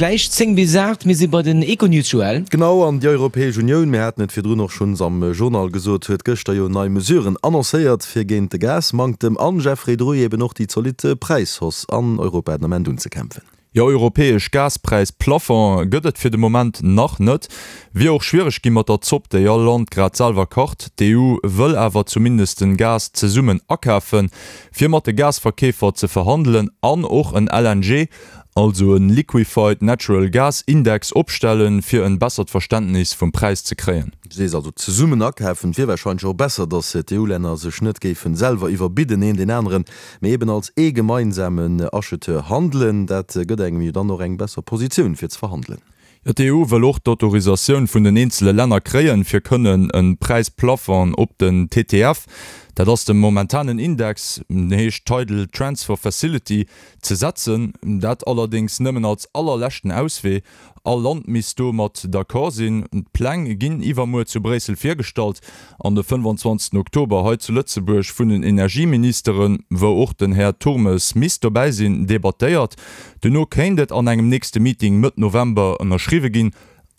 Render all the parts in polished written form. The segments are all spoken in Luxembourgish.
Gläich 10 bis 8, mir si bei den Econews, Joël. Genau, an déi Europäesch Unioun, mir haten et virdrun och schonns am Journal gesot, huet gëschter jo nei Mesuren annoncéiert, fir géint de Gasmanktem an, Jeffrey Druy, eben och déi zolidd Präishausse an Europa den Ament unzekämpfen. Jo, europäesch Gaspräis-Plafond gëtt et fir de Moment nach net. Wier och schwiereg gi mat der Zopp, déi all Land grad selwer kacht. D'EU wëll awer zumindest den Gas zesummen akafen, fir mat de Gasverkeefer ze verhandelen an och en LNG, also en Liquefied Natural Gas Index opstellen, fir en bessert Verständnis vum Präis ze kréien. Du sees also zesummen akafen. Et wier warscheinlech och besser, datt d'EU-Länner sech net géifen selwer iwwerbidden, een deen aneren, mee eben als ee gemeinsamen Acheteur handelen. Dat gëtt engem jo dann och eng besser Positioun fir ze verhandelen. Jo, d'EU wëll och d'Autorisatioun vun den eenzele Länner kréien, fir kënnen e Präisplafond op den TTF, dat ass de momentanen Index, den heescht Tidal Transfer Facility, ze setzen. Dat allerdéngs nëmmen als allerleschten Auswee. All Land misst do mat d'accord sinn. D'Pläng ginn iwwermuer zu Bréissel virgestallt an de 25 Oktober hei zu Lëtzebuerg vun den Energieministeren, wou och den Här Turmes misst dobäi sinn, debattéiert. Duerno kéint et an engem nächste Meeting Mëtt November ënnerschriwwe ginn.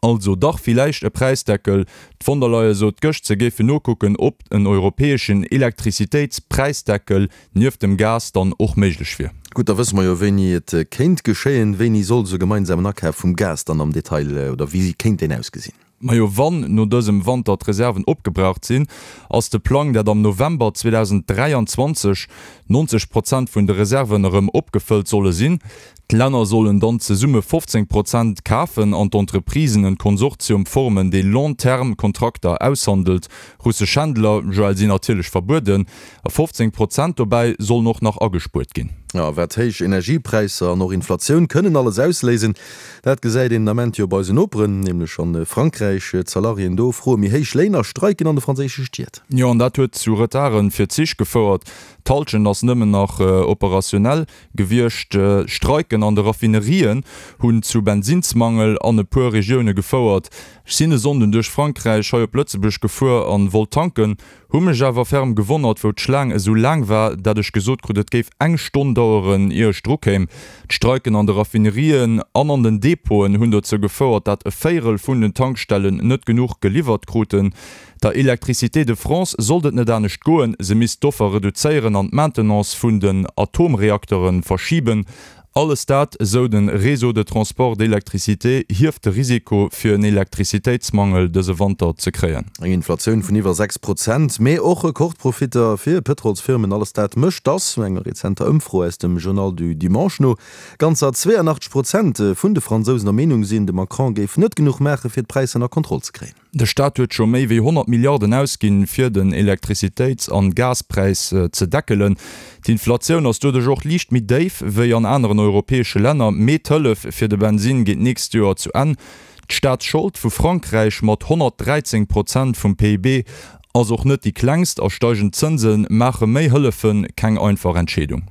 Also dach villäicht e Präisdeckel. D'Von der Leyen sot gëscht, se géifen nokucken, ob en europäeschen Elektrizitéitspräisdeckel nieft dem Gas dann och méiglech wier. Gutt, da wësse mer jo wéini et kéint geschéien. Wéini soll esou e gemeinsamen Akaf vum Gas dann am Detail, oder wéi kéint deen ausgesinn? Majo, wann no dësem Wanter d'Reserven opgebraucht sinn, ass de Plang, dat am November 2023 90 Prozent vun de Reserven erëm opgefëllt solle sinn. D'Länner sollen dann zesumme 15 Prozent kafen an d'Entreprisen en Konsortium formen, dee Long-terme-Kontrakter aushandelt. Russesch Händler, Joël, sinn natierlech verbueden. A 15 Prozent dobäi sollen och nach agespuert ginn. Jo, wat héich Energiepräisser an och Inflatioun kënnen alles ausléisen, dat gesäit een den Ament jo bei eisen Noperen, nämlech a Frankräich. D'Salariéen do froe méi héich Léin a streiken an de franséische Stied. Jo, an dat huet zu Retarde fir d'Zich gefouert. D'Hallschent ass nëmmen nach operationnel gewiescht. Streiken an de Raffinerien hunn zu Bensinnsmangel an e puer Regioune gefouert. Ech sinn e Sonnden duerch Frankräich hei op Lëtzebuerg gefuer an wollt tanken. Hu mech awer ferm gewonnert, wou d'Schlaang esou laang war, dat ech gesot krut, et géif eng Stonn daueren, ier ech dru kéim. D'Streiken an de Raffinerien an an den Depoten hunn dozou gefouert, dat e Véierel vun den Tankstellen net genuch geliwwert kruten. Der Electricité de France sollt et net anescht goen, se misst d'Offer reduzéieren an d'Maintenance vun den Atomreaktere verschiben. Alles dat, esou de Réseau de transport d'électricité, hieft de Risiko fir en Elektrizitéitsmangel dëse Wanter ze kréien. Eng Inflatioun vun iwwer 6 Prozent, mee och Rekordprofitter fir Pëtrolsfirmen, alles dat mécht, dass, no enger rezenter Ëmfro aus dem Journal du Dimanche no, ganzer 82 Prozent vun de Fransousen der Meenung sinn, de Macron géif net genuch maache fir d'Präisser ënner Kontroll ze kréien. De Staat huet scho méi wéi 100 Milliarden ausginn, fir den Elektrizitéits an Gaspräis ze deckelen. D'Inflatioun ass doduerch och liicht méi déif wéi an aneren europäesche Länner, mee d'Hëllef fir de Bensinn geet d'nächst Joer zu Enn. D'Staatsschold vu Frankräich mat 113 Prozent vum PIB ass och net déi klengst a steigend Zënse maache méi Hëllefe keng einfach Entscheedung.